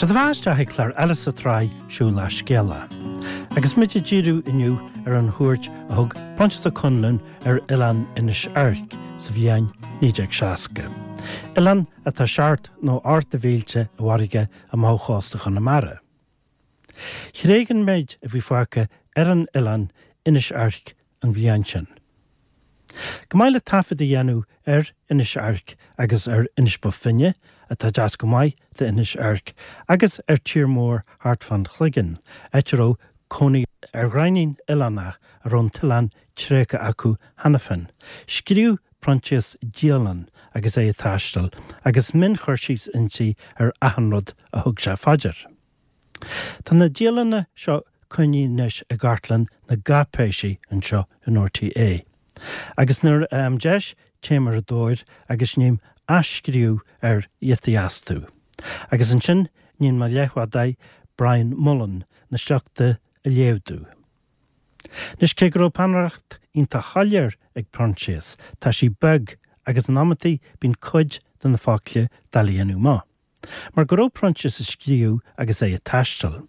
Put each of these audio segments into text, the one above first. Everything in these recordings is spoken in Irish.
Seo daoibh isteach ag clár eile sa tsraith Siúlach Scéalach. Agus muid ag díriú inniu ar an chuairt a thug Proinsias Ó Conluain ar oileán Inis Oirc sa bhliain 1960. Oileán atá seacht nó ocht de mhílte i bhfarraige amach ó chósta Chonamara. Thréig an méid a bhí fágtha ar an oileán Inis Oirc an bhliain sin. Chomh maith le taifead a dhéanamh ar Inis Oirc agus ar Inis Bó Finne, atá deas go maith d'Inis Oirc, agus ar tír mór thart fán Chloigeann, áit a raibh cónaí ar ghreidhnín oileánach a raibh an t-oileán tréigthe acu cheana féin, scríobh Proinsias dialann agus é ag taisteal, agus mion-chur síos inti ar achan rud a thug sé fá dear. Tá na dialanna seo coinnithe anois i gcartlann na gcáipéisí anseo in RTÉ. Agus nuair a fhaighim deis téim ar a dtóir agus ním athscríobh ar ghiotaí astu. Agus ansin níonn mo leathbhádóir Brian Mullen na sleachta a léamh domh. Anois cé go raibh peannaireacht iontach shoiléir ag Proinsias, tá sí beag agus in amantaí bíonn cuid de na focla doiligh a dhéanamh amach. Mar go raibh Proinsias ag scríobh agus é ag taisteal,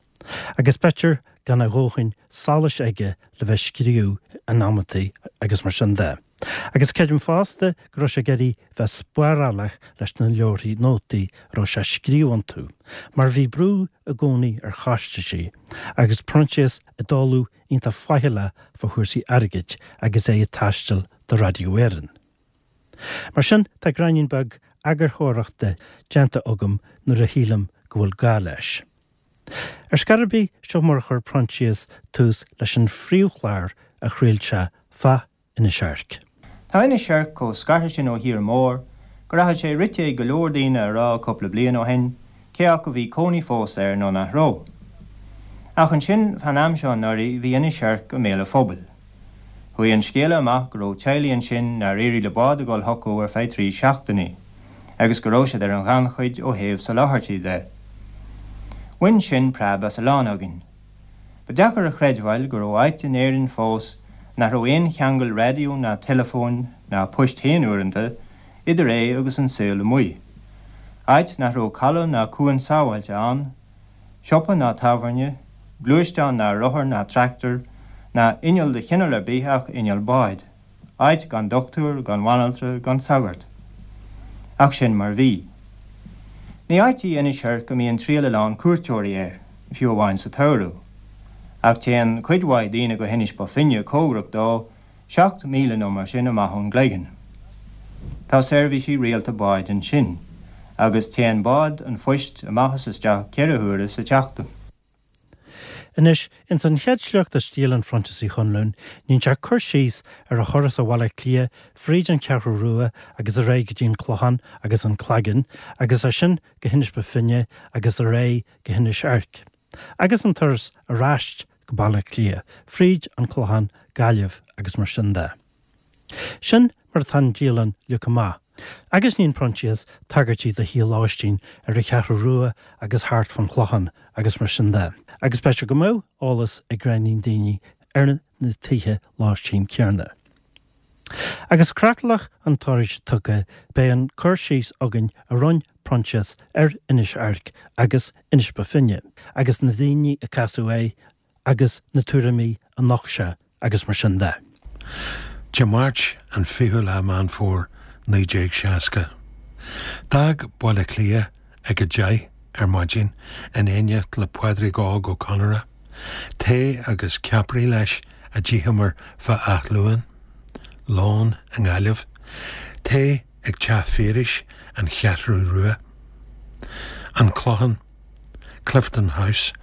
agus b'fhéidir gan a dhóthain solais aige le bheith ag scríobh in amantaí agus mar sin de. Agus creidim fosta go raibh sé ag iarraidh bheith spárálach leis na leabharthaí nótaí a raibh sé ag scríobh iontu, mar bhí brú i gcónaí ar chostaisí, agus Proinsias ag dul iontach faichilleach fá chúrsaí airgid agus é ag taisteal do Radio Éireann. Mar sin, tá gráinnín beag eagarthóireachta déanta agam nuair a shílim go bhfuil gá leis. Ar scor ar bith, seo mar a chuir Proinsias tús leis an phríomhchlár a chraol sé fá Inis Oirc. Tá Inis Oirc chomh scartha sin ó thír mór go rachadh sé rite ag go leor daoine a rá cúpla bliain ó shin cé acu bhí cónaí fós air nó nach raibh. Ach ansin, fán am seo anuraidh, bhí Inis Oirc i mbéal an phobail. Chuaigh an scéala amach go raibh teaghlaigh ansin nár éirigh le bád a dhul chucu ar feadh 3 seachtainí, agus go raibh siad ar an ghannchuid ó thaobh soláthairtí de. Bhain sin preab as a lán againn. Ba deacair a chreidbheáil go raibh áit in Éirinn fós nach raibh aon cheangal raidió ná teileafóin, ná poist féin uaireanta, idir é agus an saol amuigh. Áit nach raibh caladh ná cuan sábháilte ann, siopa ná tábhairne, gluaisteán ná rothar ná tractor, ná inneall de chineál ar bith ach inneall báid. Áit gan dochtúir, gan bhanaltra, gan sagart. Ach sin mar bhí. Ní áit í Inis Oirc a mbíonn triall a lán cuairteoirí air, fiú amháin sa tsamhradh. Ach téann cuid mhaith daoine go hInis Bó Finne cóngarach dó, 7 míle nó mar sin amach ón gCloigeann. Tá seirbhísí rialta báid ansin, agus téann bád an phoist amach is isteach 4 huaire sa tseachtain. Anois, ins an chéad sliocht as dialann Phroinsias Uí Chonluain, níonn sé cur síos ar a thuras ó Bhaile Átha Cliath fríd an Cheathrú Rua agus ar aghaidh go dtí an Clochán agus an Cloigeann agus as sin go hInis Bó Finne agus ar aghaidh go hInis Oirc. Agus an turas ar ais go Baile Átha Cliath, fríd an Clochán, Gaillimh agus mar sin de. Sin mar atá an dialann leagtha amach, agus níonn Proinsias tagairtí do thithe lóistín ar an Cheathrú Rua agus thart fán Chlochán agus mar sin de, agus b'fhéidir go mbeadh eolas ag gráinnín daoine ar na tithe lóistín céanna. Agus creatlach an turais tugtha, beidh an cur síos againn a rinne Proinsias ar Inis Oirc agus Inis Bó Finne, agus na daoine a casadh air agus na tuairimí a nocht sé agus mar sin de. Dé Máirt an 20ú lá Meán Fómhair 1960. D'fhág Baile Átha Cliath ag 10 ar maidin in éineacht le Pádraig Óg Ó Conaire. Tae agus ceapairí leis a d'itheamar fá Áth Luain. Lón i nGaillimh. Tae ag Teach Phiarais, An Cheathrú Rua. An Clochán, Clifton House,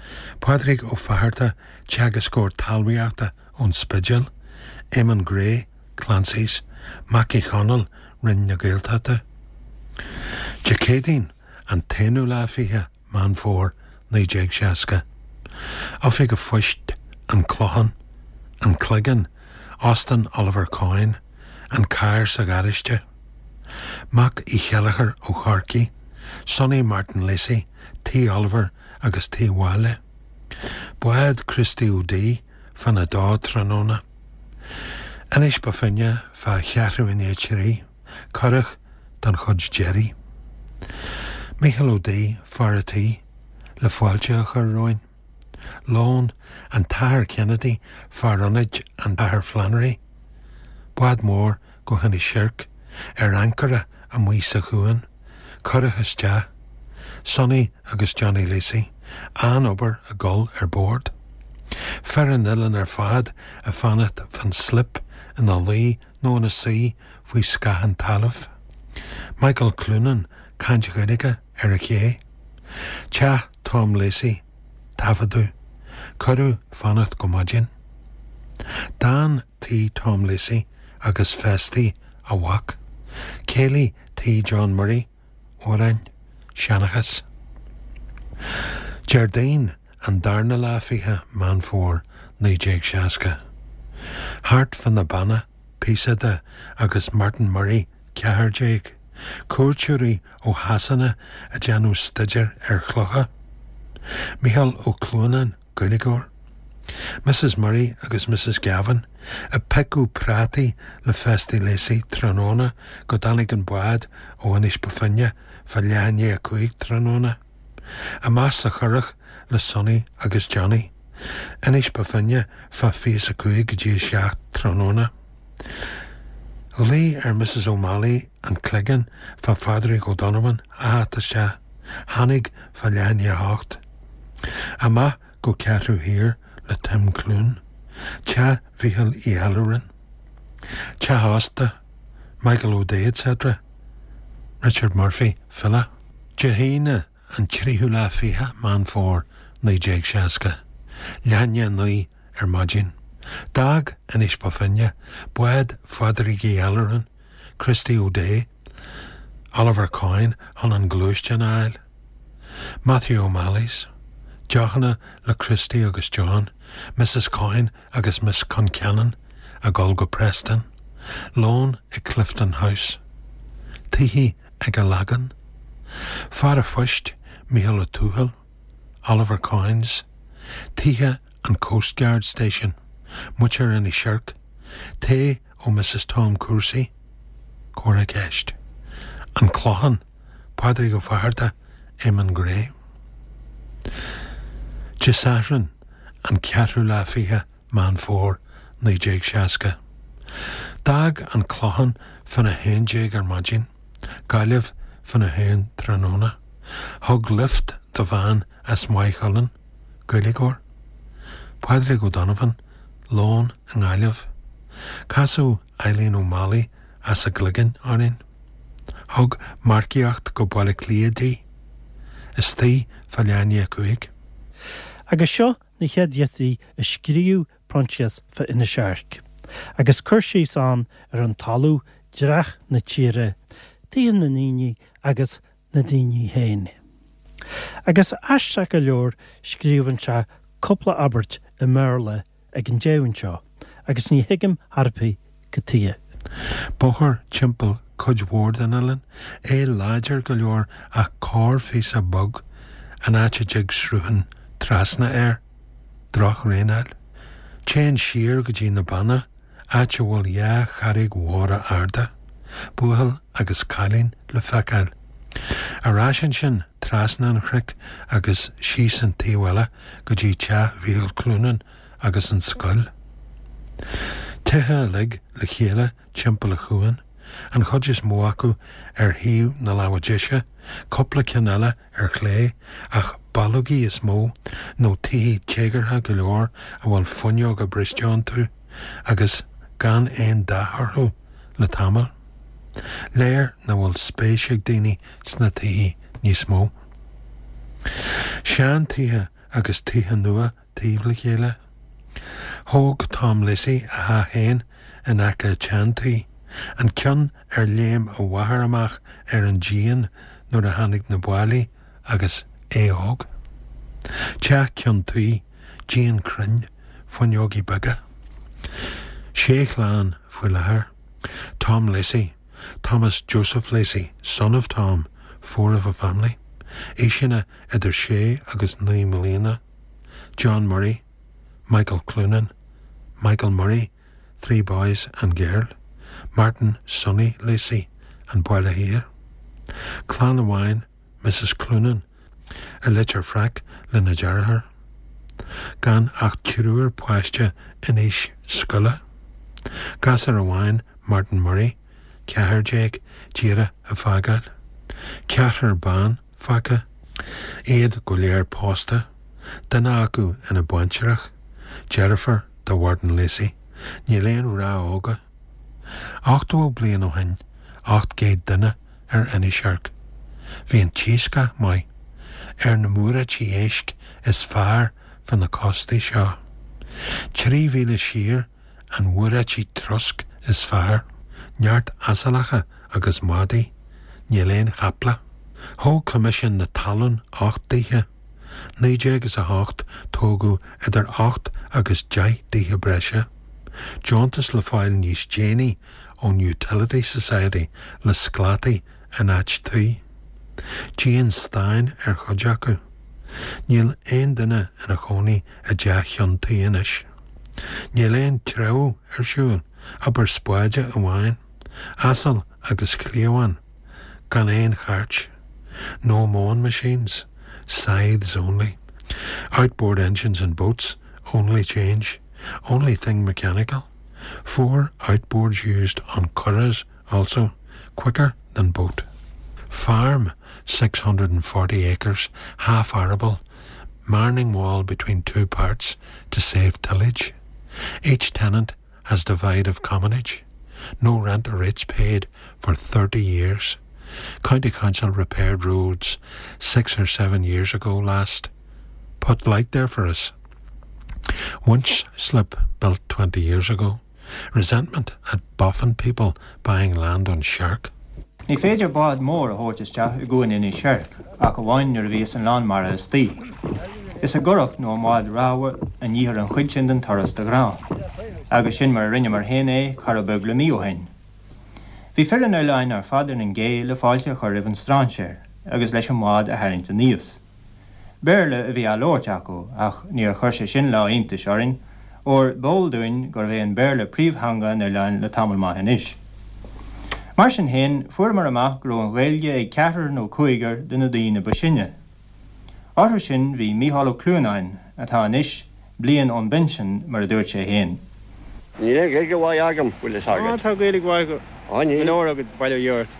Pádraig Ó Fatharta, teagascóir talmhaíochta ón Spidéal, Éamonn Gray, Clancy's, Mac Uí Chonaill, Roinn na Gaeltachta. Dé Céadaoin, an t-aonú lá 20 Meán Fómhair 1960. Oifig a' Phoist, An Clochán, An Cloigeann, Óstán Oliver Coyne, An carr sa gharáiste. Mac Uí Cheilleachair ó Chorcaigh, Sonny Martin Lacey, Tigh Oliver agus Tigh Mháille. Bád Christy O'Dea fána dó tráthnóna. Inis Bó Finne fá cheathrú i ndiaidh 3, curach don chuid deiridh. Mícheál Ó Dí, fear a' tí. le fáilte a chur romhainn. Lón, an tAthair Kennedy, fear ionaid an Athair Flannery. Bád mór go hInis Oirc, ar ancaire amuigh sa chuan, curach isteach, Sonny agus Johnny Lacey, an-obair ag dul ar bord. Fir an oileáin ar fad ag fanacht fán slip ina luí nó ina suí faoi scáth an talaimh. Michael Cloonan, caint Ghaeilge ar an ché. Teach Tom Lacey, taifeadadh. Cuireadh fanacht go maidin. D'fhan Tigh Tom Lacey agus Festy a mhac. Céilí Tigh John Murray, amhráin, seanchas. Déardaoin an darna lá fiche Meán Fómhair 1960. Thart fá na Beanna, píosa de, agus Martin Murray 14, cuairteoirí ó Shasana ag déanamh staidéir ar chlocha. Mícheál Ó Cluanáin, Gaeilgeoir. Mrs Murray agus Mrs Gavin ag piocadh prátaí le Festy Lacey tráthnóna go dtáinig an bád ó Inis Bó Finne fá leath i ndiaidh 5 tráthnóna. Amach sa churach le Sonny agus Johnny. Inis Bó Finne fá fiche is a 5 go dtí a 7 tráthnóna. Ghlaoigh ar Mrs O'Malley an Cloigeann fá Phádraig O'Donovan a theacht isteach. Tháinig fá leath i ndiaidh a hocht. Amach go Ceathrú Thiar le Tim Clune. Teach Mhíchíl Uí Allúráin. Teach ósta, Michael O'Dea etc. Richard Murphy, file. Dé hAoine an tríú lá fiche Meán Fómhair 1960. Leath i ndiaidh 9 ar maidin. D'fhág Inis Bó Finne bád Phádraig Uí Allúráin, Christy O'Dea, Oliver Coyne chun an gluaisteán a fháil. Matthew O'Malley's. Deochanna le Christy agus John, Mrs Coyne agus Miss Concannon ag dul go Preston. Lón i Clifton House. Tithe ag an Lagán. Fear a phoist, Mícheál Ó Tuathail, Oliver Coyne's. Tithe an Coastguard Station. Muintir Inis Oirc. Tae ó Mrs Tom Cúrsaí. Comhrá ceist. An Clochán, Pádraig Ó Fátharta, Eamon Gray. Dé Sathairn, an ceathrú lá fiche Meán Fómhair 1960. D'fhág an Clochán fána 11 ar maidin, Gaillimh fána haon tráthnóna. Thug lift do bhean as Maigh Chuilinn, Gaeilgeoir. Pádraig O'Donovan, lón i nGaillimh. Casadh Eileen O'Malley as an gCloigeann orainn. Thug marcaíocht go Baile Átha Cliath di. Istigh fá leath i ndiaidh 5. Agus seo na chéad ghiotaí a scríobh Proinsias fá Inis Oirc, agus cur síos ann ar an talamh, dreach na tíre, tithe na ndaoine agus na daoine féin. Agus aisteach go leor scríobhann sé cúpla abairt i mBéarla ag an deireadh anseo agus ní thuigim chor ar bith cad tuige. Bóthar timpeall cuid mhór den oileán, é láidir go leor ach corrphíosa bog an áit a dtig sruthán trasna air. Drochdhraenáil. Téann siar go dtí na Beanna, áit a bhfuil dhá charraig mhóra arda, buachaill agus cailín le feiceáil. Ar ais ansin trasna an chnoic agus síos an taobh eile go dtí teach Mhíchíl Cloonan agus an scoil. Tithe uilig le chéile timpeall an chuain, an chuid is mó acu ar thaobh na láimhe deise, cúpla ceann eile ar chlé, ach ballógaí is mó, nó tithe téagartha go leor a bhfuil fuinneoga briste iontu agus gan aon dath orthu le tamall. Léir nach bhfuil spéis ag daoine sna tithe níos mó. Sean-tithe agus tithe nua taobh le chéile. Thóg Tom Lacey a theach féin in aice an tsean-tí, an ceann ar léim a mháthair amach ar an díon nuair a tháinig na báillí agus é óg. Teach ceann tuí, díon cruinn, fuinneogaí beaga. Sé chlann faoi láthair. Tom Lacey, Thomas Joseph Lacey, son of Tom, four of a family. Aoiseanna idir sé agus naoi mbliana. John Murray, Michael Cloonan, Michael Murray, three boys and girl, Martin Sonny Lacey, An Baile Thiar. Clann amháin, Mrs Cloonan. I Leitir Fraic lena deartháir. Gan ach triúr páiste in aois scoile. Gasúr amháin, Martin Murray, 14, díreach ag fágáil. Ceathrar ban fágtha. Iad go léir pósta, duine acu ina baintreach, deirfiúr do Mhartin Lacey. Níl aon mhná óga. 80 bliain ó shin, 800 duine ar Inis Oirc. Bhí an t-iascach maith. Ar na muireáití éisc is fearr fá na cóstaí seo. 3 mhíle siar an mhuireáití trosc is fearr. Neart asaileacha agus madaí. Níl aon chaiple. Thóg Coimisiún na Talún 8 dtithe. 19 is 8 tógadh idir 8 agus 10 dtithe breise. Deontas le fáil níos déanaí ón Utility Society le sclátaí in áit tuí. Díon stáin ar chuid acu. Níl aon duine ina chónaí i dteach cheann tuí anois. Níl aon treabhadh ar siúl, obair spáide amháin, asal agus cliabhán, gan aon chairt. No mowing machines, scythes only. Outboard engines and boats only change, only thing mechanical. Four outboards used on curraghs also, quicker than boat. Farm 640 acres, half arable, marning wall between two parts to save tillage. Each tenant has divide of commonage. No rent or rates paid for 30 years. County Council repaired roads six or seven years ago last. Put light there for us. Winch slip built 20 years ago. Resentment at boffin people buying land on Shark. Ní féidir bád mór a thabhairt isteach i gcuan Inis Oirc ach amháin nuair a bhíos an lán mara istoíche. Is i gcurach nó i mbád ramhar a níthear an chuid sin den turas de ghnáth. Agus sin mar a rinneamar féin é corradh beag le mí ó shin. Bhí fir an oileáin ar fad ar an gcé le fáilte a chur roimh an strainséir agus leis an mbád a tharraingt aníos. Béarla a bhí á labhairt acu ach níor chuir sé sin lá iontais orainn, óir b'eol dúinn gurbh é an Béarla príomhtheanga an oileáin le tamall maith anois. Mar sin féin, fuaireamar amach go raibh an Ghaeilge ag ceathrar nó cúigear de na daoine ba sine. Orthu sin bhí Mícheál Ó Cluanáin, atá anois bliain ón bpinsean, mar a dúirt sé féin. Níl aon Ghaeilge mhaith agam, bhfuil fhios agat. Á, tá Gaeilge mhaith go leor agat, bail ó Dhia ort.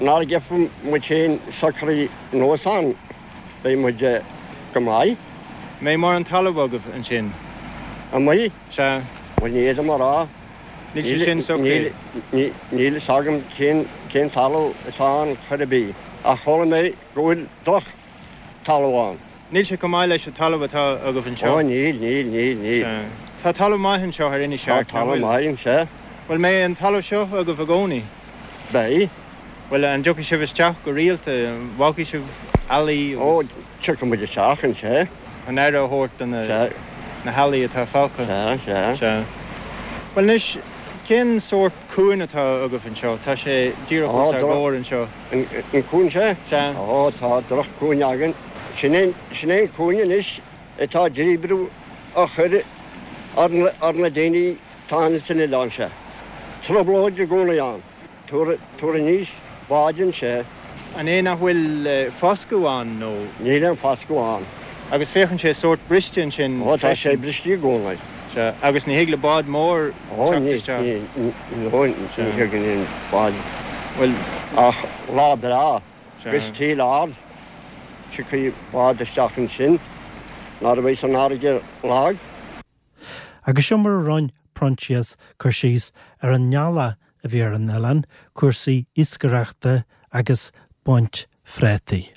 Nuair a gheobhaidh muid féin socraithe anuas ann, beidh muid go maith. Mbeidh mórán talamh agaibh ansin? Amuigh? Sea. Bhuel, ní fhéadaim a rá. Níl sé sin socraithe. Níl fhios agam cén talamh atá ann chor ar bith, ach chuala mé go bhfuil droch talamh ann. Níl sé chomh maith leis an talamh atá agaibh anseo. Ó, níl, níl, níl, níl. Sea. Tá talamh maith anseo ar Inis Tá Oirc, nach talamh bhfuil? maith anseo. Bhuel, mbeidh an talamh seo agaibh i gcónaí? Beidh. Bhuel, an dtiocfaidh sibh isteach go rialta? An bhfágfaidh sibh eallaí Ó, agus. tiocfaidh muid isteach anseo. An aire a thabhairt do na, Sea. na heallaí atá fágtha? Sea, sea. Sea. Bhuel, anois, cén sórt cuain atá agaibh anseo? Tá sé díreach Ó, os ár droch. gcomhair anseo. An cuan seo? Sea. Ó, tá droch-chuan againn. Sin é, sin é an cuan anois atá díobrú á chur ar na, ar na daoine atá ann san oileán seo. Trioblóid i gcónaí ann. Tabhair, tabhair aníos báid anseo. An é nach bhfuil foscadh ann nó? Níl aon foscadh ann. Agus féachann sé sórt briste ansin Ó, tá sé freisin. briste i gcónaí. Sea, agus ní thig le bád mór Ó, teacht ní, isteach. ní, ní, ní Sea. thigeann aon bád. Bhuel. Ach lá breá, Sea. agus taoille ard, tiocfaidh bád isteach ansin nuair a bheas an fharraige lag. Agus seo mar a roinn Proinsias cur síos ar an ngealach a bhí ar an oileán, cúrsaí iascaireachta agus baint phréataí.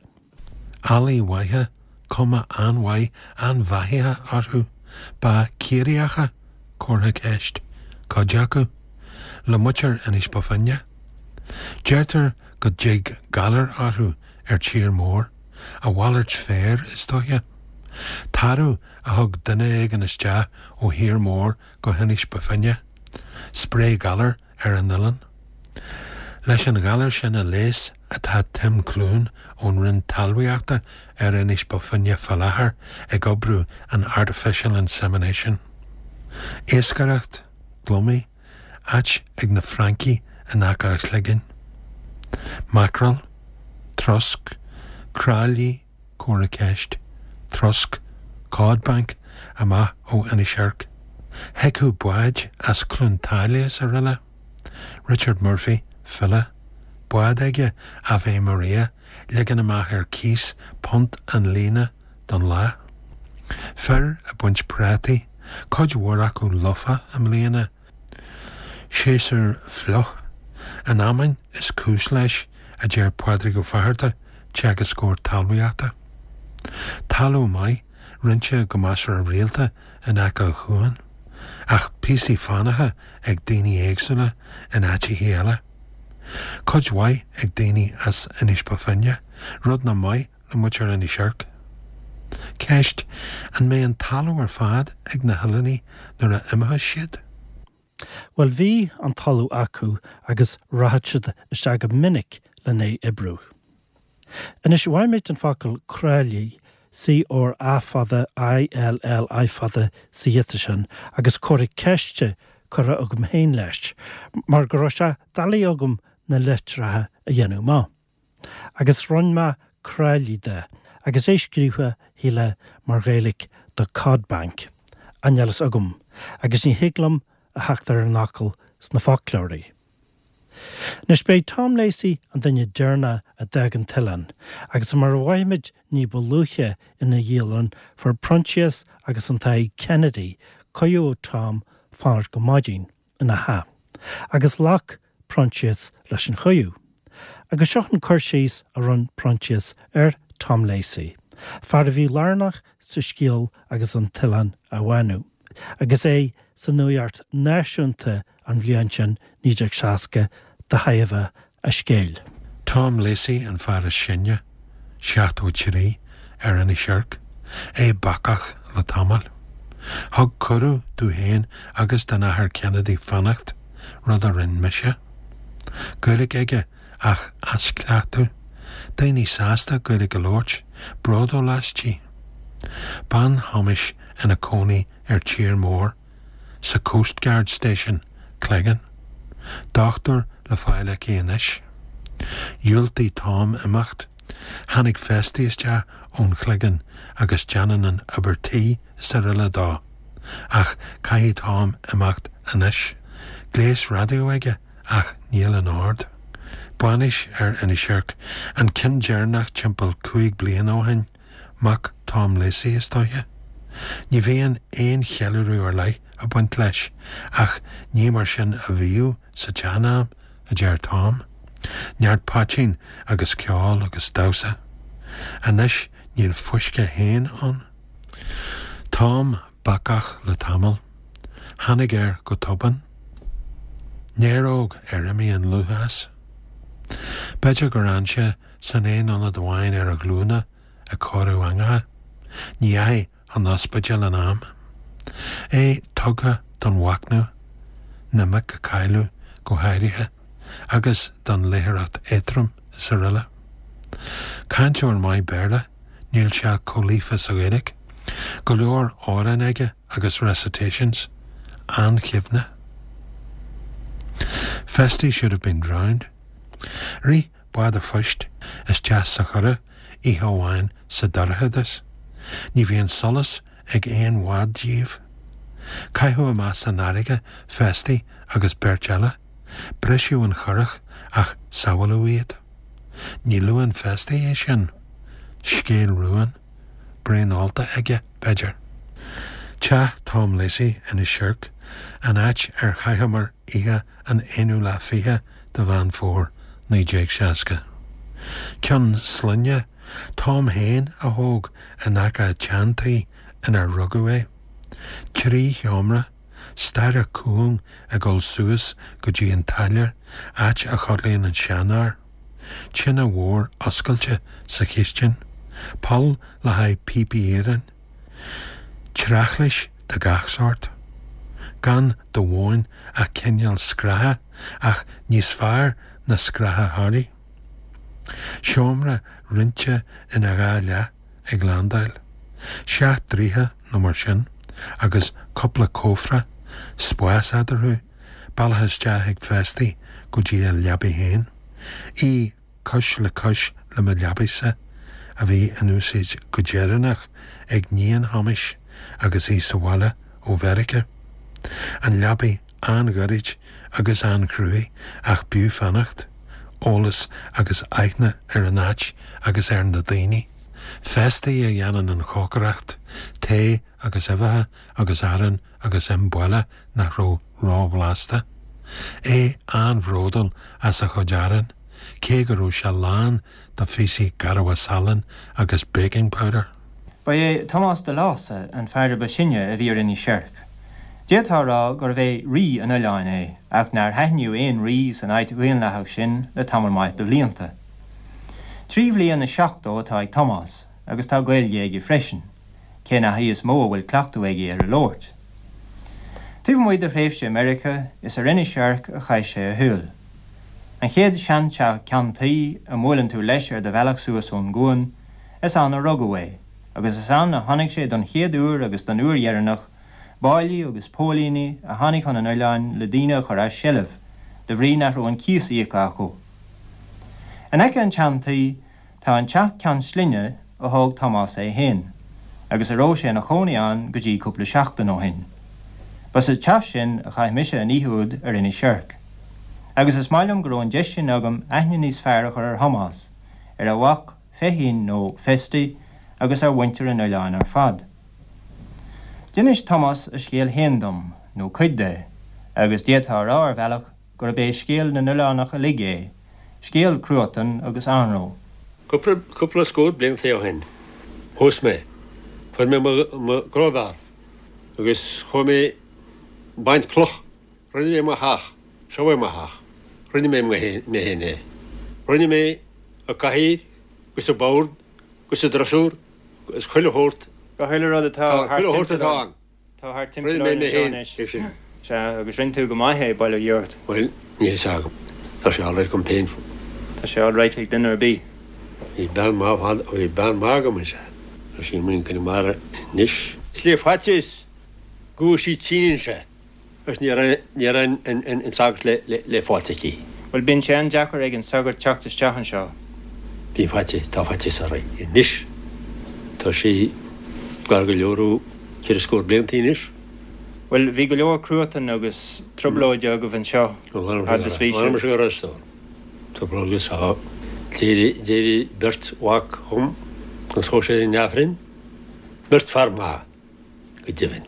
Eallaí mhaithe, cuma an-mhaith an-bheathaithe orthu. Ba Ciarraíocha, comhartha ceist, cuid acu. Le muintir Inis Bó Finne. Deirtear go dtig galar orthu ar tír mór, a mhalairt féir is dóiche. Tarbh a thug duine éigin isteach ó thír mór go hInis Bó Finne. Spréigh galar ar an oileán. Leis an ghalar sin a leigheas atá Tim Clune ón Roinn Talmhaíochta ar Inis Bó Finne fá láthair ag oibriú an artificial insemination. Iascaireacht, gliomaigh, áit ag na Francaigh in aice a chloiginn. Mackerel, trosc, cráillí. Comhartha ceiste. Trosc. Cod Bank amach ó Inis Oirc. Thiocfadh báid as Cluain tSáile is araile. Richard Murphy, file. Bád aige, Ave Maria, ligean amach ar cíos punt an líne don lá. Fir ag baint prátaí, cuid mhór acu lofa i mbliana. Séasúr fliuch. An fheamainn is cúis leis, a deir Pádraig Ó Fátharta, teagascóir talmhaíochta. Talamh maith, roinnte go measartha rialta in aice an chuain, ach píosaí fánacha ag daoine éagsúla in áiteachaí eile. Cuid mhaith ag daoine as Inis Bó Finne, rud nach maith le muintir Inis Oirc. Ceist, An mbeidh an talamh ar fad ag na hoileánaigh nuair a imeochas siad? Bhuel bhí an talamh acu agus rachadh siad isteach go minic len é oibriú. Anois mhaith muid an focal cráillí, C R A fada I L L I fada sa ghiota sin agus comhartha ceiste curtha agam féin leis mar go raibh sé doiligh agam na litreacha a dhéanamh amach. Agus rinne mé cráillí de, agus é scríofa, shílfeá, mar Ghaeilge do Cod Bank, ach níl fhios agam, agus ní thig liom a theacht ar an fhocal sna foclóirí. Anois, b'é Tom Lacey an duine deireanach a d'fhág an t-oileán, agus mar a mhaígh muid ní ba luaithe ina dhialann, fuair Proinsias agus an Tadhg Kennedy cuireadh ó Tom fanacht go maidin ina theach, agus ghlac Proinsias leis an chuireadh. Agus seo an cur síos a rinne Proinsias ar Tom Lacey, fear a bhí lárnach sa scéal agus an t-oileán á bhánú, agus é sa nuacht náisiúnta an bhliain sin, 1960, de thairbhe a scéil. Tom Lacey an fear is sine, 73, ar Inis Oirc, é bacach le tamall. Thug cuireadh domh féin agus don Athair Kennedy fanacht, rud a rinn mise. Gaeilge aige ach as cleachtadh. Daoine sásta Gaeilge a labhairt, bródúil aisti. Bean Thomáis ina cónaí ar tír mór. sa Coastguard Station, Cleggan. Dochtúir le fáil aici anois. Dhiúltaigh Tom imeacht. Tháinig Festy isteach ón Chloigeann agus déanann an obair tí is araile dó. Ach caithfidh Tom imeacht anois. Gléas raidió aige ach níl in ord. Bainis ar Inis Oirc, an ceann deireanach timpeall 5 bliana ó shin. Mac Tom Lacey, is dóiche. Ní bhíonn aon cheiliúradh ar leith ag baint leis, ach ní mar sin a bhíodh sa tsean-am, a deir Tom. Neart poitín agus ceol agus damhsa. Anois níl fuisce féin ann. Tom bacach le tamall. Tháinig air go tobann. Néaróg ar imigh an lúth as. B'fhéidir gur fhan sé san aon ionad amháin ar a ghlúine ag cóiriú eangacha. Ní dheachaigh chun ospidéil in am. É tugtha don mhachnamh, na mic a cailleadh go háirithe, agus don léitheoireacht éadrom is araile. Cainteoir maith Béarla, níl sé chomh líofa sa Ghaeilge. Go leor amhrán aige agus recitations. An-chuimhne. Festy should have been drowned. Rith bád a phoist isteach sa churach oíche amháin sa dorchadas. Ní bhíonn solas ag aon bhád díobh. Caitheadh amach san fharraige Festy agus beirt eile. Briseadh an churach ach sábháladh iad. Ní luann Festy é sin. Scéal rúin. Braon ólta aige, b'fhéidir. Teach Tom Lacey, Inis Oirc, an áit ar chaitheamar oíche an aonú lá fiche de Mheán Fómhair 1960. Ceann sloinne Tom féin a thóg in aice an tseantí inar rugadh é. 3 sheomra, staighre cúng ag dul suas go dtí an táilliúir, áit a chodlaíonn an seanfhear. Tine mhór oscailte sa chistin. Poll le haghaidh píopaí iarainn. Treachlais de gach sórt. Gan de mhóin ach cineál scraithe, ach níos fearr ná scraithe Harley. Seomra roinnte ina dhá leath ag landáil. Seacht dtroithe nó mar sin, agus cúpla cófra, spás eadarthu, bealach isteach ag Festy go dtí a leabaidh féin. Í cois le cois le mo leabaidh-sa. a bhí in úsaid go deireanach ag níon Thomáis agus í sa bhaile ó Mheiriceá. An leabaidh an-ghoirid agus an-chruaidh ach b'fhiú fanacht, eolas agus aithne ar an áit agus ar na daoine. Festy a dhéanann an chócaireacht, tae agus uibheacha agus arán agus im buile nach raibh róbhlasta. É an-bhródúil as a chuid aráin, cé go raibh sé lán de phíosaí garbha salainn agus baking powder. Ba é Tomás de Lása an fear a ba shine a bhí ar Inis Oirc. D'fhéadfá a rá gurbh é rí an oileáin é, ach nár haithníodh aon rí san áit dhaonlathach sin le tamall maith de bhlianta. 73 bhliain atá ag Tomás, agus tá Gaeilge aige freisin, cé nach í is mó a bhfuil cleachtadh aige ar a labhairt. Taobh amuigh de thréimhse i Meiriceá, is ar Inis Oirc a chaith sé a shaol. An chéad seanteach ceann tuí a mbuaileann tú leis ar do bhealach suas ón gcuan, is ann a rugadh é, agus is ann a chonaic sé don chéad uair agus don uair dheireanach báillí agus póilíní a tháinig chun an oileáin le daoine a chur as seilbh de bhrí nach raibh an cíos íoctha acu. In aice an tseantuí Tá an teach ceann slinne a thóg Tomás é féin, agus a raibh sé ina chónaí ann go dtí cúpla seachtain ó shin. Ba sa teach sin a chaith mise an oíche úd ar Inis Oirc. Agus is maith liom go raibh an deis sin agam aithne níos fearr a chur ar Thomás, ar a mhac Feichín nó Festy agus ar mhuintir an oileáin ar fad. D'inis Tomás a scéal féin dom, nó cuid de, agus d'fhéadfá a rá ar bhealach gurb é scéal na n-oileánach uilig é, scéal cruatain agus anró. Cúpla, cúpla scór blianta ó shin, phós mé. Fuair mé mo, mo crowbar agus chuaigh mé baint cloch. Rinne mé mo theach. Seo é mo theach. Rinne mé mé féin é. Rinne mé an cathaoir agus an bord agus an drosúr agus chuile shórt. Chuile rud atá thart chuile shórt atá ann. Tá thart timpeall orainn anseo anois. Sea, agus rinne tú go maith é, bail ó Dhia ort. Bhuel, níl fhios agam. Tá sé alright agam féin. Tá sé alright ag duine ar bith. Bhí bean maith fad, bhí bean maith agam, is ea. Tá sí amuigh in Conamara anois. Is le faitíos go bhfuair sí tinn anseo. Agus ní raibh, ní raibh an sagart le, le, le fáilt aici. Bhuel, bíonn sé an-deacair ag an sagart teacht isteach anseo. Bhí faitíos, tá faitíos uirthi anois. Tá sí gar go leor ó cheithre scór blianta anois. Bhuel, bhí go leor cruatain agus trioblóide agaibh anseo fhad is bhí sibh. Mh'anam go raibh a stór. Trioblóid agus tá. D'éirigh, d'éirigh beirt mhac dhom agus chuaigh siad in Aifreann. Beirt fear maith. go deimhin,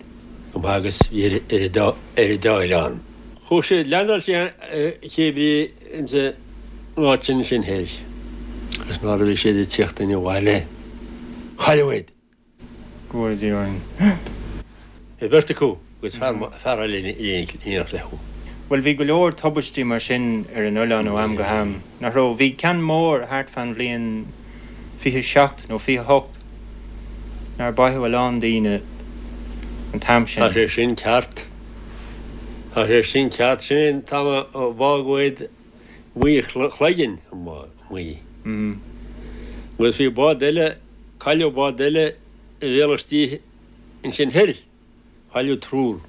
go maith agus bhí ar an dá oileán. Chuaigh siad, leaindeáil siad cébrí ins an áit sin sin thoir agus nuair a bhí siad ag tíocht abhaile cailleadh iad. Go bhfóire Dia orainn. Bhí beirt acu agus fear eile in éineacht leo. Bhuel, bhí go leor tubaistí mar sin ar an oileán ó am go ham, nach raibh? Bhí ceann mór thart fán bhliain 27 nó 28. Nár báitheadh a lán daoine an t-am sin. Tá sé sin ceart. Tá sé sin ceart. Sin é an t-am a bádh iad Maigh Chloiginn, amuigh. Agus bhí bád eile, cailleadh bád eile i bhéal istigh ansin thoir. Cailleadh triúr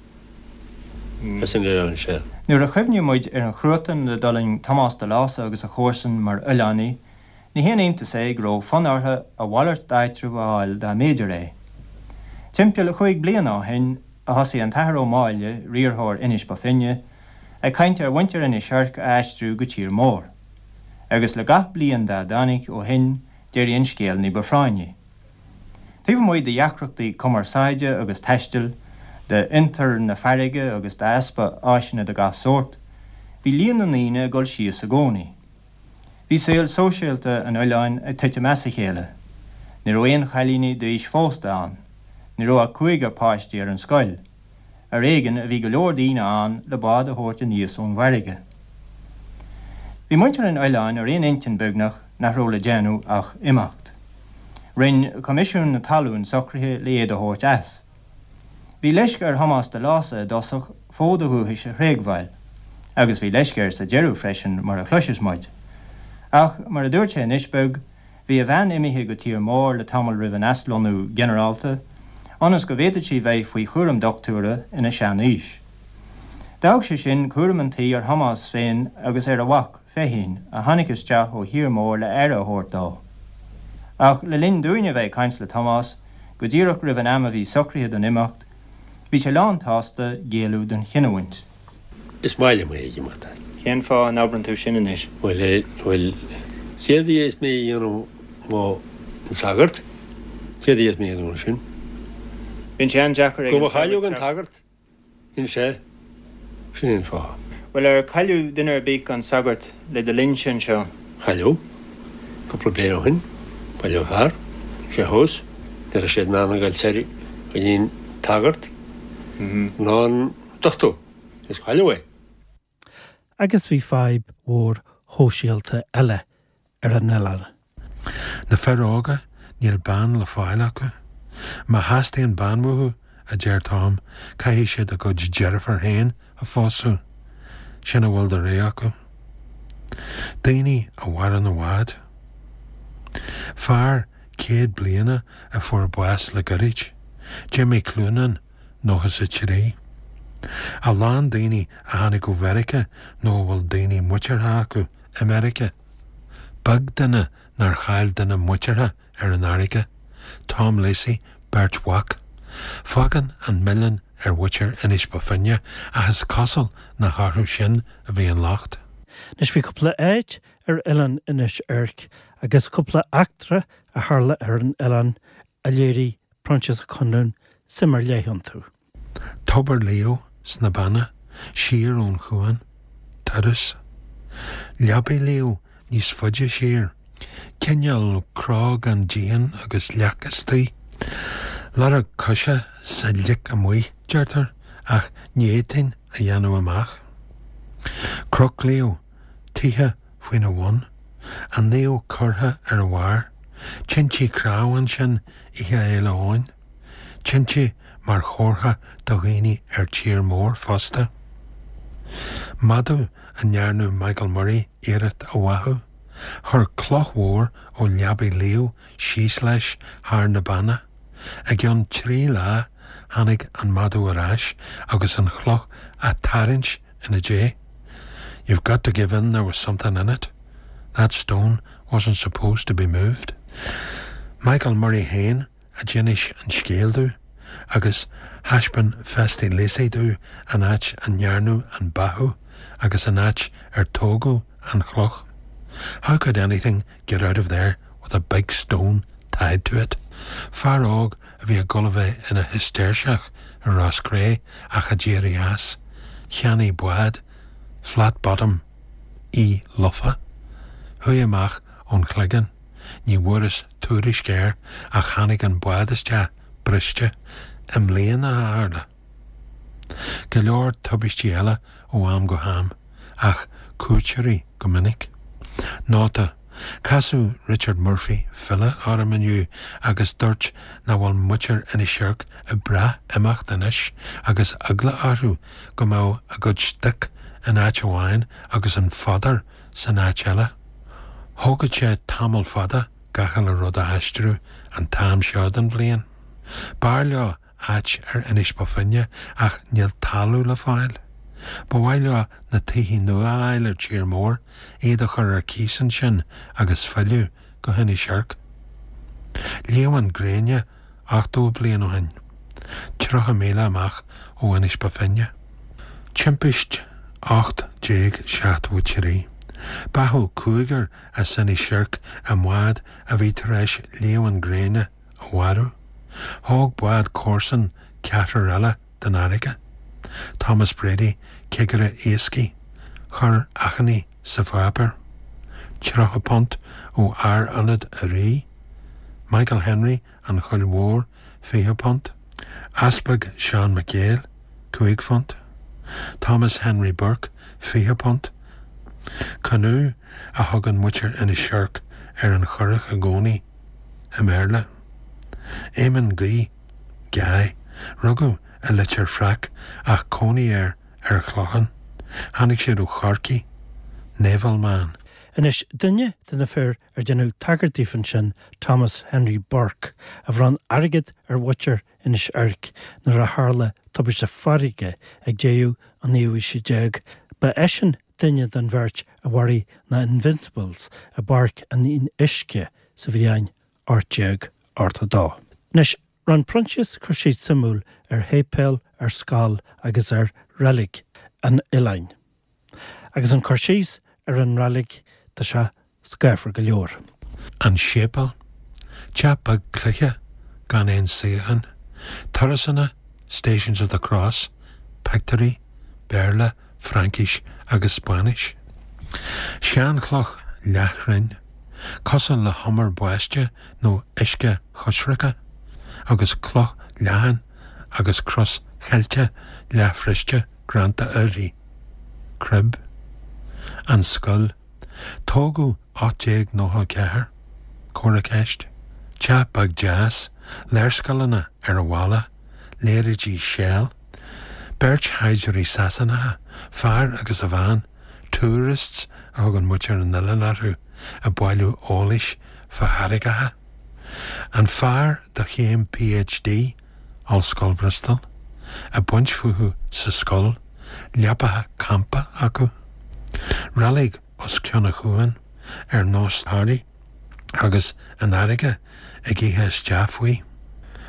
as an oileán seo. Nuair a chuimhníonn muid ar an chruatan a d'fhulaing Tomás de Lása agus a chomharsain mar oileánaigh, ní haon iontas é go raibh fonn orthu a mhalairt d'áitreabh a fháil dá mb'fhéidir é. Timpeall chúig bliana ó shin a thosaigh an tAthair Ó Máille, riarthóir Inis Bó Finne, ag caint ar mhuintir Inis Oirc a aistriú go tír mór. Agus le gach bliain dá dtáinig ó shin d'éirigh an scéal ní ba phráinní. Taobh amuigh de dheacrachtaí cumarsáide agus taistil, d'fhiontar na farraige agus d'easpa áiseanna de gach sórt, bhí líon na ndaoine ag dul síos i gcónaí. Bhí saol sóisialta an oileáin ag titim as a chéile. Ní raibh aon chailíní d'aois phósta ann. Ní raibh ach cúigear páistí ar an scoil. Ar éigean a bhí go leor daoine ann le bád a thabhairt aníos ón bhfarraige. Bhí muintir an oileáin ar aon intinn beagnach nach raibh le déanamh ach imeacht. Rinn Coimisiún na Talún socruithe le iad a thabhairt as. Bhí leisce ar Thomás de Lása i dtosach fód a dhúchais a thréigbheáil, agus bhí leisce air sa deireadh freisin mar a chloisfeas muid. Ach, mar a dúirt sé anois beag, Bhí a bhean imithe go tír mór le tamall roimh an aslonnú ginearálta, ionas go bhféadfadh sí bheith faoi chúram dochtúra ina sean-aois. D'fhág sé sin cúram an tí ar Thomás féin agus ar a mhac, Feichín, a tháinig isteach ó thír mór le aire a thabhairt dó. Ach le linn dúinne a bheith ag caint le Tomás, go díreach roimh an am a bhí socraithe don imeacht, bhí sé lán tsásta géilleadh don chinniúint. Is maith liom é ag imeacht. Cén fáth a n-abrann tú sin anois? Bhuel, eh, bhuel, céard a dhéanfas mé a dhéanamh má an sagart, céard a dhéanfas mé a dhéanamh ansin? Bíonn sé an-deacair ag an sagart teacht. Go mba chailleadh an tagart. Sin é. Sin é an fáth. Bhuel, ar cailleadh duine ar bith gan sagart le do linnse anseo? Cailleadh. Cúpla bliain ó shin, cailleadh fear. Sé thuas. Ní raibh siad in ann a ghoil soir go dtí an tagart ná an dochtúir. Is cailleadh é. Agus bhí fadhb mhór shóisialta eile ar an oileán. Na fir óga, níl bean le fáil acu. Má theastaíonn bean uathu, a deir Tom, caithfidh siad a gcuid deirfiúr féin a phósadh. Sin a bhfuil de rogha acu. Daoine a mhaireann i bhfad. Fear 100 bliana a fuair bás le goirid, Jimmy Cloonan, 93. A lán daoine a tháinig ó Mheiriceá nó a bhfuil daoine muinteartha acu i Meiriceá. Beag duine nár chaill duine muinteartha ar an fharraige. Tom Lacey, beirt mhac. Fágann an milleán ar mhuintir Inis Bó Finne ach is cosúil nach orthu sin a bhí an locht. Anois bhí cúpla áit ar oileán Inis Oirc agus cúpla eachtra a tharla ar an oileán a léirigh Proinsias Ó Conluain suim ar leith iontu. Tobar Leo sna Beanna, siar ón chuan, turas. Leabaidh Leo níos faide siar, cineál cró gan díon agus leac istoigh. Lorg coise sa lic amuigh, deirtear, ach ní fhéadfainn a dhéanamh amach. Cnoc Leo, tithe faoina bhun, an naomh curtha ar a bharr, tinte cnámh ansin Oíche Fhéile Eoin. Tinte mar chomhartha do dhaoine ar tír mór fosta. Madadh a ndearnadh Michael Murray iarracht a bháthadh. Chuir cloch mhór ó Leabaidh Leo síos leis thar na Beanna. I gcionn 3 lá tháinig an madadh ar ais agus an chloch á tarraingt ina diaidh. You've got to give in there was something in it. That stone wasn't supposed to be moved. Michael Murray féin a d'inis an scéal domh agus thaispeáin Festy Lacey domh an áit a ndearnadh an báthadh agus an áit ar tógadh an chloch. How could anything get out of there with a big stone tied to it? Fear óg a bhí ag dul a bheith ina Shistéirseach i Ros Cré ach a d'éirigh as, cheannaigh bád flat bottom í lofa. Chuaigh amach ón Chloigeann. Ní bhfuaireas tuairisc air ach tháinig an bád isteach briste i mbliana a tharla. Go leor tubaistí eile ó am go ham, ach cuairteoirí go minic. Nóta, Casadh Richard Murphy, file, orm inniu agus dúirt nach bhfuil muintir Inis Oirc ag brath imeacht anois agus eagla orthu go mbeadh a gcuid stoic in áit amháin agus an fodar san áit eile. Thógfadh sé tamall fada gach uile rud a aistriú an t-am seo den bhliain. B'fhearr leo áit ar Inis Bó Finne ach níl talamh le fáil. Ba mhaith leo na tithe nua a fháil ar tír mór, iad a chur ar cíos ansin agus filleadh go hInis Oirc. Líomhain gréine 80 bliain ó shin. 30 míle amach ó Inis Bó Finne. Timpist 1873. Báthadh cúigear as Inis Oirc i mbád a bhí tar éis líomhain gréine a mharú. Thóg bád comharsan ceathrar eile den fharraige. Thomas Brady, cigire iascaigh, chuir achainí sa pháipéar. £30 ó fhear ionaid a' Rí. Michael Henry, An Choill Mhór, £20. Easpag Seán McGale, £5. Thomas Henry Burke, £20. Canoe a thugann muintir Inis Oirc ar an churach i gcónaí, i mBéarla. Éamonn Guí, Guy, rugadh i Leitir Fraic ach cónaí air ar an Chlochán. Tháinig siad ó Chorcaigh. Naval man. Anois, duine de na fir ar deineadh tagairt daofa ansin, Thomas Henry Burke, a bhronn airgead ar mhuintir Inis Oirc nuair a tharla tubaiste farraige ag deireadh an naoú haoise déag, ba eisean duine den bheirt a mharaigh na Invincibles i bPáirc an Fhionnuisce sa bhliain. 1882. Anois, rinne Proinsias cur síos suimiúil ar shéipéal, ar scoil agus ar reilig an oileáin. Agus an cur síos ar an reilig, tá sé scáfar go leor. An séipéal, teach beag cloiche gan aon suíochán, turasanna, Stations of the Cross, pictiúirí, Béarla, Fraincis agus Spáinnis. Seanchloch leathchruinn, cosúil le humar báistí nó uisce choisricthe, agus cloch leathan agus cros cheilte leathbhriste greanta uirthi. Crib. An scoil. Tógadh 1894. Comhartha ceiste. Teach beag deas, léarscáileanna ar an bhalla, léaráidí Shell. Beirt shaighdiúirí Sasanacha, fear agus a bhean, tourists a thugann muintir an oileáin orthu, ag bailiú eolais fá charraigeacha. An fear do chéim PhD, Ollscoil Bhristol, ag baint fúthu sa scoil, leapacha campa acu. Reilig os cionn an chuain, ar nós Thoraí, agus an fharraige ag ithe isteach faoi.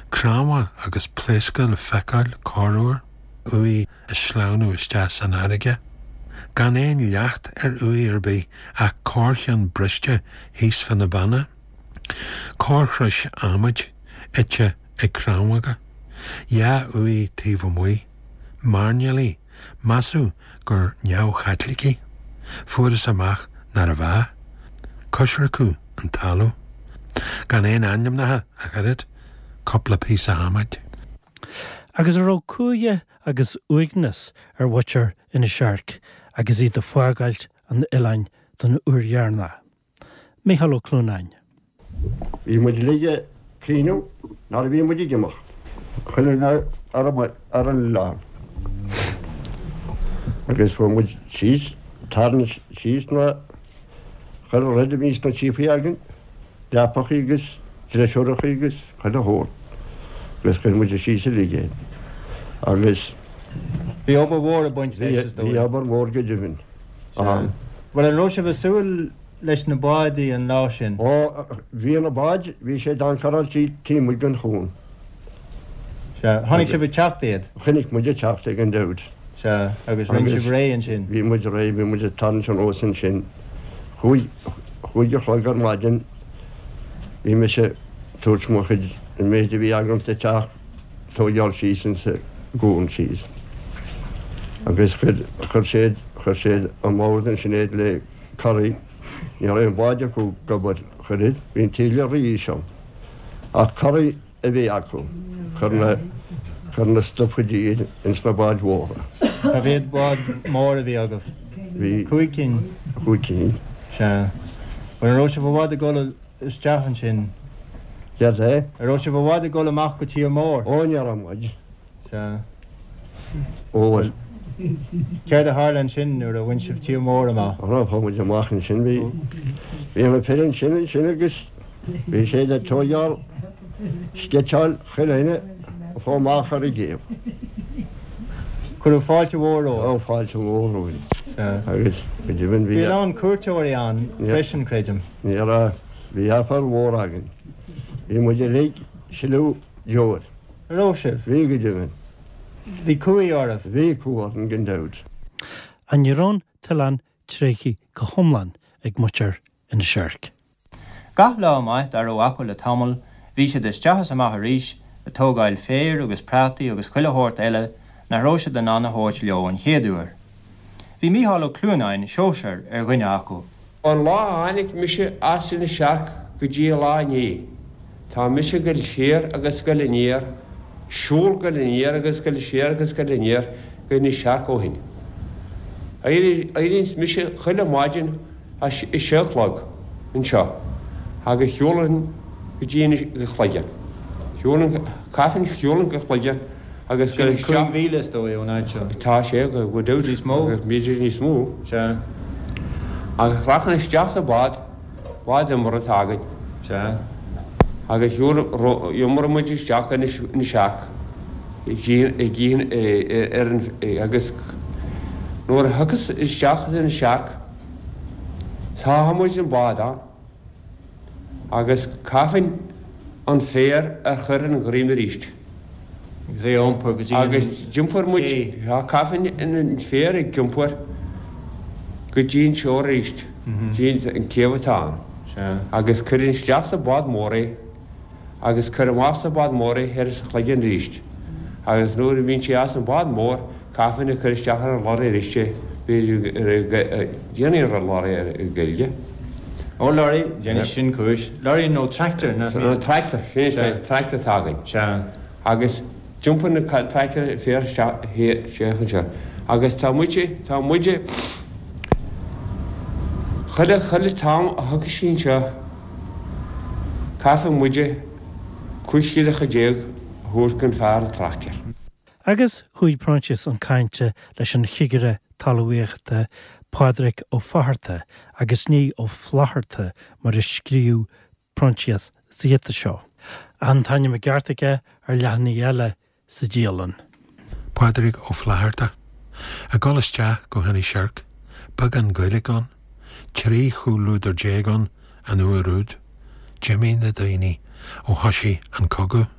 Cnámha agus pléasctha le feiceáil corruair, uaigh ag sleamhnú isteach san fharraige. Gan aon leacht ar uaigh ar bith ach corrcheann briste thíos fá na beanna. Corrchrois adhmaid ite ag crann. Dhá uaigh taobh amuigh. Mairnéalaigh, measadh gur neamh-Chaitlicigh. Fuarthas amach nárbh ea. Coisriceadh an talamh. Gan aon ainmneacha ach oiread, cúpla píosa adhmaid. Agus an raibh cumha agus uaigneas ar mhuintir Inis Oirc agus iad ag fágáilt an oileáin don uair dheireanach? Mícheál Ó Clúnáin. Bhí muid uilig ag caoineadh nuair a bhí muid ag imeacht. Chuile dhuine ar an oileán. Agus fuair muid síos, tarraingt síos na, chuile rud a bhí sna síopaí againn, leapachaí agus dreisiúrachaí agus chuile shórt. Agus chuir muid síos uilig é. Agus. Bhí obair mhór ag baint leis, is dóigh. Bhí obair mhór go deimhin. Ann. Bhuel, an raibh sibh ag súil leis na bádaí an lá sin? Ó, bhí na báid, bhí siad ancoráilte taobh amuigh den chuan. Sea. Chonaic sibh ag teacht iad? Chonaic muid ag teacht iad gan dabht. Sea. Agus rinne sibh réidh ansin? Bhí muid réidh, bhí muid ag tarraingt anuas ansin. Chúig, chúig a chlog ar maidin, bhí mise ag tabhairt mo chuid, an méid a bhí agam sa teach, tóigeáil síos insa gcuan síos agus chuir, chuir siad, chuir siad i mbord ansin iad le coraí, ní raibh aon bhád acu ag obair, chuir iad, bhí an taoille rí-íseal ach coraí a bhí acu, chuir na, chuir na stufaidí iad ins na báid mhóra. Cá mhéad bád mór a bhí agaibh? Bhí. Cúig cinn? Cúig cinn. Sea. Bhuel an raibh sibh i bhfad ag dul isteach ansin. Céard é? An raibh sibh i bhfad ag dul amach go tír mór? Ó, ní raibh muid. Sea. Ó, bhuel. Céard a tharla ansin nuair a bhain sibh tír mór amach? Ó, chuaigh muid amach ansin, bhí, bhí na fir ansin, ansin agus bhí siad ag tóigeáil, sceitseáil chuile dhuine a chuaigh amach ar an gcéibh. Cuireadh fáilte mhór romhaibh. Ó, fáilte mhór romhainn. Sea. Agus go deimhin bhí. Bhí a lán cuairteoirí ann freisin, creidim. Ní raibh. Bhí aiféala mhór againn. Bhí muid uilig ag sileadh deoir. An raibh sibh? Bhí, go deimhin. Bhí cumhaidh oraibh? Bhí cumha orainn gan dabht. Ach ní raibh an t-oileán tréigthe go hiomlán ag muintir Inis Oirc. Gach lá maith dá raibh acu le tamall bhí siad isteach is amach arís ag tógáil féir agus prátaí agus chuile shórt eile nach raibh siad in ann a thabhairt leo an chéad uair. Bhí Mícheál Ó Clúnáin, Seosair, ar dhuine acu. Ón lá a tháinig mise as Inis Oirc go dtí an lá inné, tá mise ag goil siar agus ag goil aniar, siúl goil aniar agus goil siar agus goil aniar go Inis Oirc ó shin. Éiríonns mise chuile mhaidin a sé a chlog anseo agus shiúlainn go dtí Inis go Cloigeann. Shiúlainn, caithfinn shiúlainn go Cloigeann agus goil isteach. Sin 5 mhíle is dóigh ón áit seo. Tá sé, go deimhin. Níos mó? B'fhéidir níos mó. Sea. Agus rachainn isteach sa bhád, bád iomramh atá againn. Sea. Agus iomróidh muid isteach go Inis Oirc ar an, agus nuair a thiocfas isteach as Inis Oirc, sáfaidh muid an bád ann agus caithfinn. an féar a chur an ghreim arís. Agus é a iompar go dtí an Agus d'iompair muid, cé. sea, caithfinn an féar ag iompar go dtí an shore arís, dtí an céibh atá ann. Sea. Agus cuireann isteach sa bhád mór é agus cuir amach sa bhád mór é thoir sa Chloigeann arís. Agus nuair a bhíonn sé as an bhád mór, caithfinn a chur isteach ar an lorry arís é, b'fhéidir, déanfaidh an lorry ar an Ghaeilge. Ó lorry, déanfaidh sin cúis. Lorry nó tractor, nach mbíonn? Tractor, sin é, tractor atá againn. Sea. Agus d'iompair na tractor féar isteach isteach anseo. Agus tá muide, tá muide, chuile, chuile t-am a thiocfaidh sí anseo, caithfidh muide 15 scilling a thabhairt don fear an tractor. Agus chuaigh Proinsias chun cainte leis an chigire talmhaíochta Pádraig Ó Fatharta agus ní Ó Flaithearta mar a scríobh Proinsias sa ghiota seo. An t-ainm i gceart aige ar leathanaigh eile sa dialann. Pádraig Ó Flaithearta. Ag dul isteach go hInis Oirc, beagán Gaeilge ann, 13 chomhluadar ann an uair úd. D'imigh na daoine ó thoisigh an cogadh.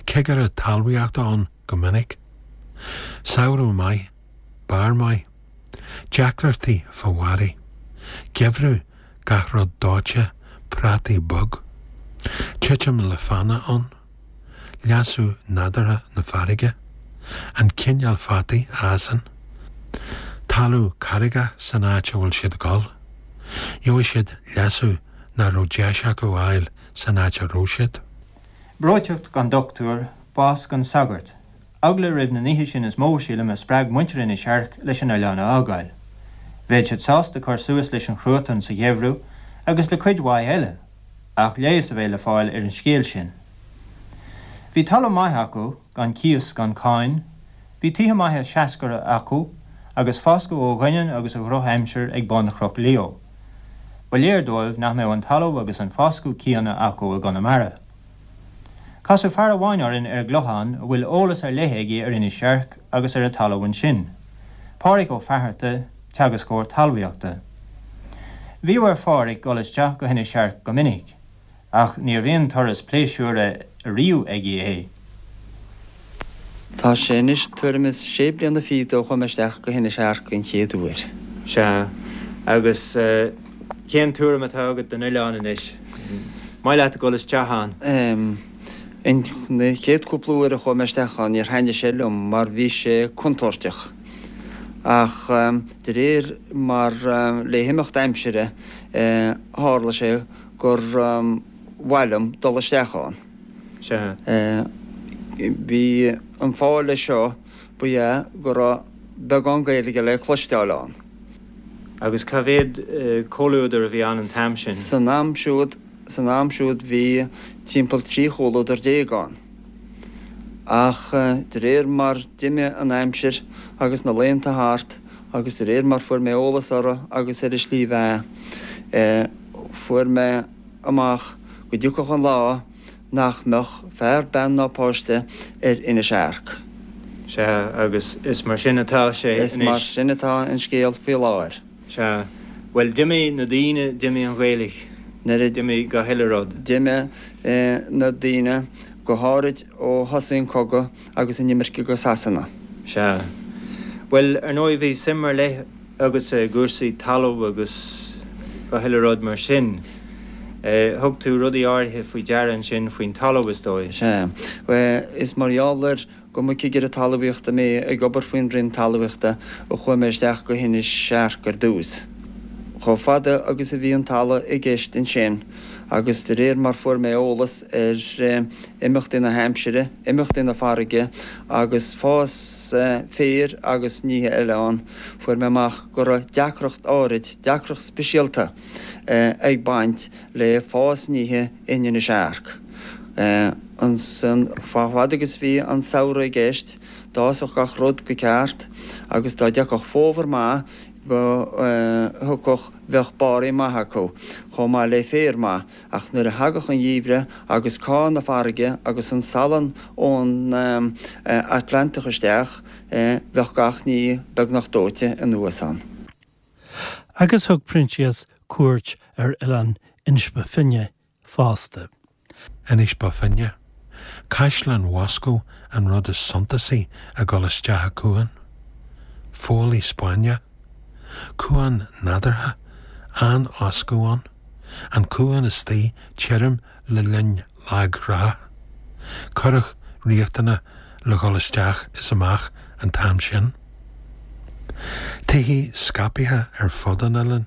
Cigire talmhaíochta ann go minic. Samhradh maith, barr maith. Deacrachtaí fá bharraí. Geimhreadh gach rud dóite, prátaí bog. Titim le fána ann. Leasú nádúrtha na farraige. An cineál fataí a fhásann. Talamh carraigeach san áit a bhfuil siad ag dul. Gheobhaidh siad leasú nach raibh deis acu a fháil san áit a raibh siad. Breoiteacht gan dochtúir, bás gan sagart. Eagla roimh na nithe sin is mó, sílim, a spreag muintir Inis Airc leis an oileán a fhágáil. Bheadh siad sásta cur suas leis an chruatan sa gheimhreadh agus le cuid mhaith eile, ach leigheas a bheith le fáil ar an scéal sin. Bhí talamh maith acu, gan cíos gan cáin, bhí tithe maithe seascair acu agus foscadh ó dhoineann agus ó dhrochaimsir ag bun Chnoc Leo. Ba léir dóibh nach mbeadh an talamh agus an foscadh céanna acu i gConamara. Casadh fear amháin orainn ar an gClochán a bhfuil eolas ar leith aige ar Inis Airc agus ar an talamh ansin, Pádhraic Ó Fatharta, teagascóir talmhaíochta. Bhíodh ar Phádhraic dul isteach go hInis Airc go minic, ach níorbh aon turas pléisiúrtha ariamh aige é. Tá sé anois tuairim is sé bliana fichead ó chuaigh mé isteach go hInis Airc an chéad uair. Sea. Agus cén tuairim atá agat den oileán anois? Maith leat a dhul isteach ann? Em. Na chéad cúpla uair a chuaigh mé isteach ann níor thaitnigh sé liom mar bhí sé contúirteach. Ach de réir mar le himeacht aimsire tharla sé gur mhaith liom dul isteach ann. Sea. Bhí an fáth leis seo ba ea go raibh beagán Gaeilge le cloisteáil ann. Agus cá mhéad comhluadar a bhí ann an t-am sin? San am siúd, san am siúd bhí timpeall 13 chomhluadar ann. Ach de réir mar d'imigh an aimsir agus na laethanta thart agus de réir mar fuair mé eolas orthu agus ar a slí bheatha, fuair mé amach go dtiocfadh an lá nach mbeadh fear, bean ná páiste ar Inis Airc. Sea, agus is mar sin atá sé anois. Is mar sin atá an scéal faoi láthair. Sea. Bhuel, d'imigh na daoine, d'imigh an Ghaeilge, Nuair a. d'imigh gach uile rud. D'imigh na daoine, go háirid ó thosaigh an cogadh agus an imirce go Sasana. Sea. Bhuel, ar ndóigh, bhí suim ar leith agatsa i gcúrsaí talaimh agus gach uile rud mar sin. Thug tú rudaí áirithe faoi deara ansin faoin talamh, is dóigh. Sea. Is mar gheall ar go mba cigire talmhaíochta mé ag obair faoin Roinn Talmhaíochta a chuaigh mé isteach go hInis Airc ar dtús. Chomh fada agus a bhí an talamh i gceist ansin agus de réir mar fuair mé eolas ar imeachtaí na haimsire, imeachtaí na farraige agus fás féir agus nithe eile ann, fuair mé amach go raibh deacracht áirid, deacracht speisialta, ag baint le fás nithe in Inis Airc. Ansan, chomh fada agus bhí an samhradh i gceist, d'fhásfadh gach rud go ceart agus dá dtiocfadh fómhar maith, thiocfadh, bheadh barraí maithe acu, chomh maith le féar maith, ach nuair a thagadh an gheimhreadh agus cá na farraige agus an salann ón Atlantach isteach, bheadh gach ní beagnach dóite anuas ann. Agus thug Proinsias cuairt ar oileán Inis Bó Finne fosta. Inis Bó Finne. Caisleán Mhoscó an rud is suntasaí ag dul isteach a cuan. Foghlaí Spáinneach. Cuan nádúrtha, an-fhoscadh ann. An cuan istigh tirim le linn lag-thrá. Curach riachtanach le dhul isteach is amach an t-am sin. Tithe scaipthe ar fud an oileáin.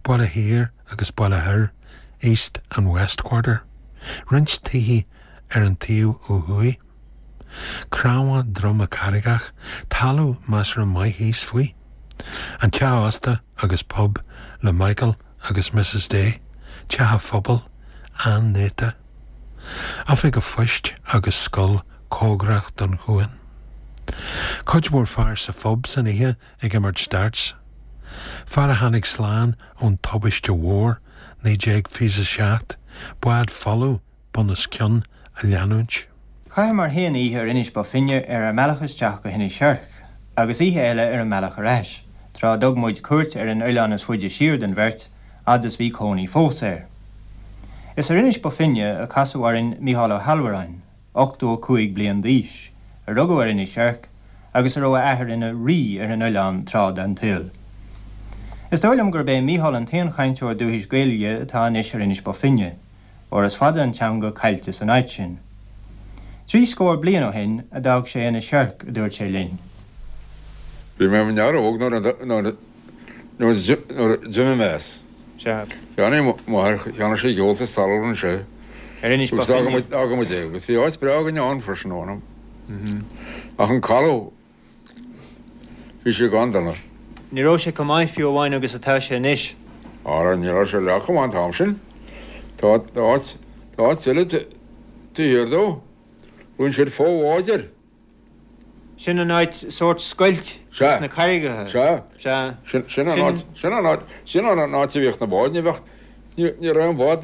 Baile Thiar agus Baile Thoir, East and West Quarter. Roinnt tithe ar an taobh ó thuaidh. Cnámha droma carraigeach, talamh measartha maith thíos faoi. An teach ósta agus pub le Michael agus Mrs Day, teach an phobail, an-néata. Oifig an phoist agus scoil cóngarach don chuan. Cuid mhór fear sa phub san oíche ag imirt darts. Fear a tháinig slán ón tubaiste mhór, 1927, bád folamh bun os cionn á leanúint. Chaitheamar féin oíche ar Inis Bó Finne ar ár mbealach isteach go hInis Oirc, agus oíche eile ar an mbealach ar ais, tráth a dtug muid cuairt ar an oileán is faide siar den bheirt, fhad is bhí cónaí fós air. Is ar Inis Bó Finne a casadh orainn Mícheál Ó hAllmhuráin, 85 bliain d'aois, a rugadh ar Inis Oirc agus a raibh a athair ina rí ar an oileán tráth den tsaol. Is dóigh liom gurb é Mícheál an t-aon chainteoir dúchais Gaeilge atá anois ar Inis Bó Finne, óir is fada an teanga caillte san áit sin. 30 bliain ó shin a d'fhág sé Inis Oirc, a dúirt sé linn. Bhí mé i m'fhear óg nuair a d'imigh mé as. Cheannaigh m'athair, cheannaigh sé ghealltas talún anseo. Ar Inis Bó Finne. Agus d'fhága muid é agus bhí áit breá againn ann freisin ann. Ach an caladh, bhí sé gan donas. Ní raibh sé chomh maith fiú amháin agus atá sé anois. Ara, ní raibh sé leath chomh maith an t-am sin. Tá áit, tá áit eile taobh thiar dó. Rinne siad fo-bhád air. Sin an áit, sórt scoilt sna carraigeacha. Sea. Sea. Sin an áit, sin an áit, sin an áit a bhíodh na báid, ní bheadh, ní raibh an bád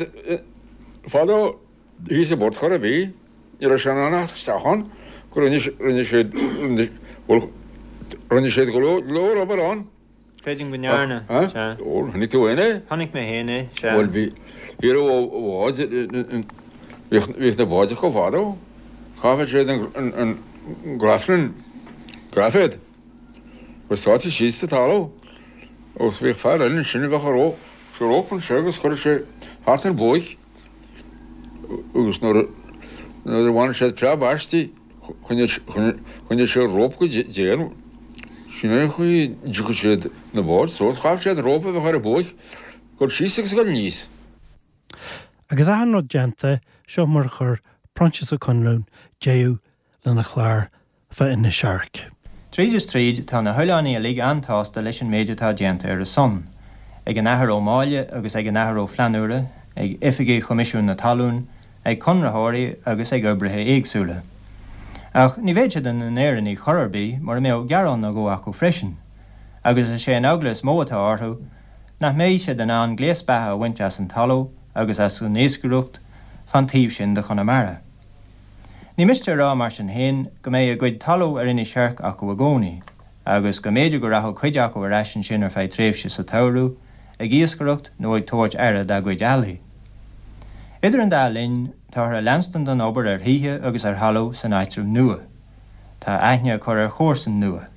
fadó thíos i bport chor ar bith, ní raibh sé in ann a theacht isteach ann, go rinne, rinne siad, bhuel, rinne siad go leor obair ann. Creidim go ndearna, sea. Ó, chonaic tú féin é? Chonaic mé féin é, sea. Bhuel, bhí, bhí raibh ó bháid, bhíodh, bhíodh na báid acu fadó. Chaitheadh siad an, an, an graflin, graiféad, agus sáite síos sa talamh agus bhíodh fear eile ansin a bheadh a ró, sa rópa anseo agus chuireadh sé thart an buaic agus nuair a, nuair a bhaineadh siad preab aisti, Choinnigh sé rópa go dian. Sin é an chaoi a dtiocfadh siad na báid suas. Chaithfeadh siad an rópa a bheith ar an buaic, dul síos agus dul aníos. Agus achan rud déanta, seo mar a chuir Proinsias Ó Conluain deireadh lena chlár fá Inis Oirc. Tríd is tríd, tá na hoileánaigh uilig an-tsásta leis an méid atá déanta ar a son, ag an Athair Ó Máille agus ag an Athair Ó Flannúra, ag oifigigh Choimisiún na Talún, ag conraitheoirí agus ag oibrithe éagsúla. Ach ní bheadh siad ina n-Éireannaigh chor ar bith mura mbeadh gearán nó dhó acu freisin, agus is é an eagla is mó atá orthu nach mbeidh siad in ann gléas beatha a bhaint as an talamh agus as an iascaireacht fán taobh sin de Chonamara. Ní miste a rá mar sin féin go mbeidh a gcuid talaimh ar Inis Oirc acu i gcónaí, agus go mb'fhéidir go rachadh cuid acu ar ais ansin ar feadh tréimhse sa tsamhradh, ag iascaireacht nó ag tabhairt aire dá gcuid eallaigh. Idir an dá linn, táthar ag leanstan den obair ar thithe agus ar thalamh san áitreabh nua. Tá aithne á cur ar chomharsain nua.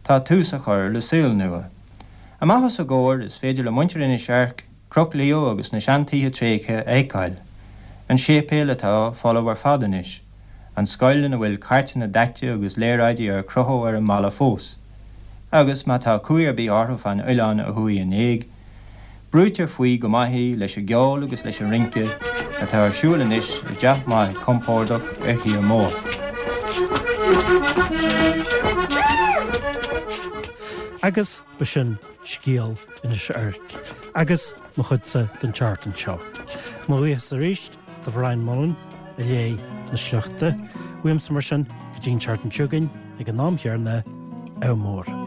Tá tús á chur le saol nua. Amach os a gcomhair, is féidir le muintir Inis Oirc Cnoc Leo agus na seantithe tréigthe a fheiceáil, an séipéal atá folamh ar fad anois, an scoil ina bhfuil cairteanna daite agus léaráidí ar crochadh ar an mballa fós, agus má tá cumhaidh ar bith orthu fán oileán a chuaigh in éag, brúitear faoi go maith í leis an gceol agus leis an rince atá ar siúl anois i dteach maith compordach ar thír mór. Agus b'shin scéal Inis Oirc agus mo chuidse don tseachtain seo. Mo bhuíochas arís do Bhrian Mullen a léigh na sleachta. Uaimse mar sin go dtí an tseachtain seo chugainn ag an am chéanna, ádh mór.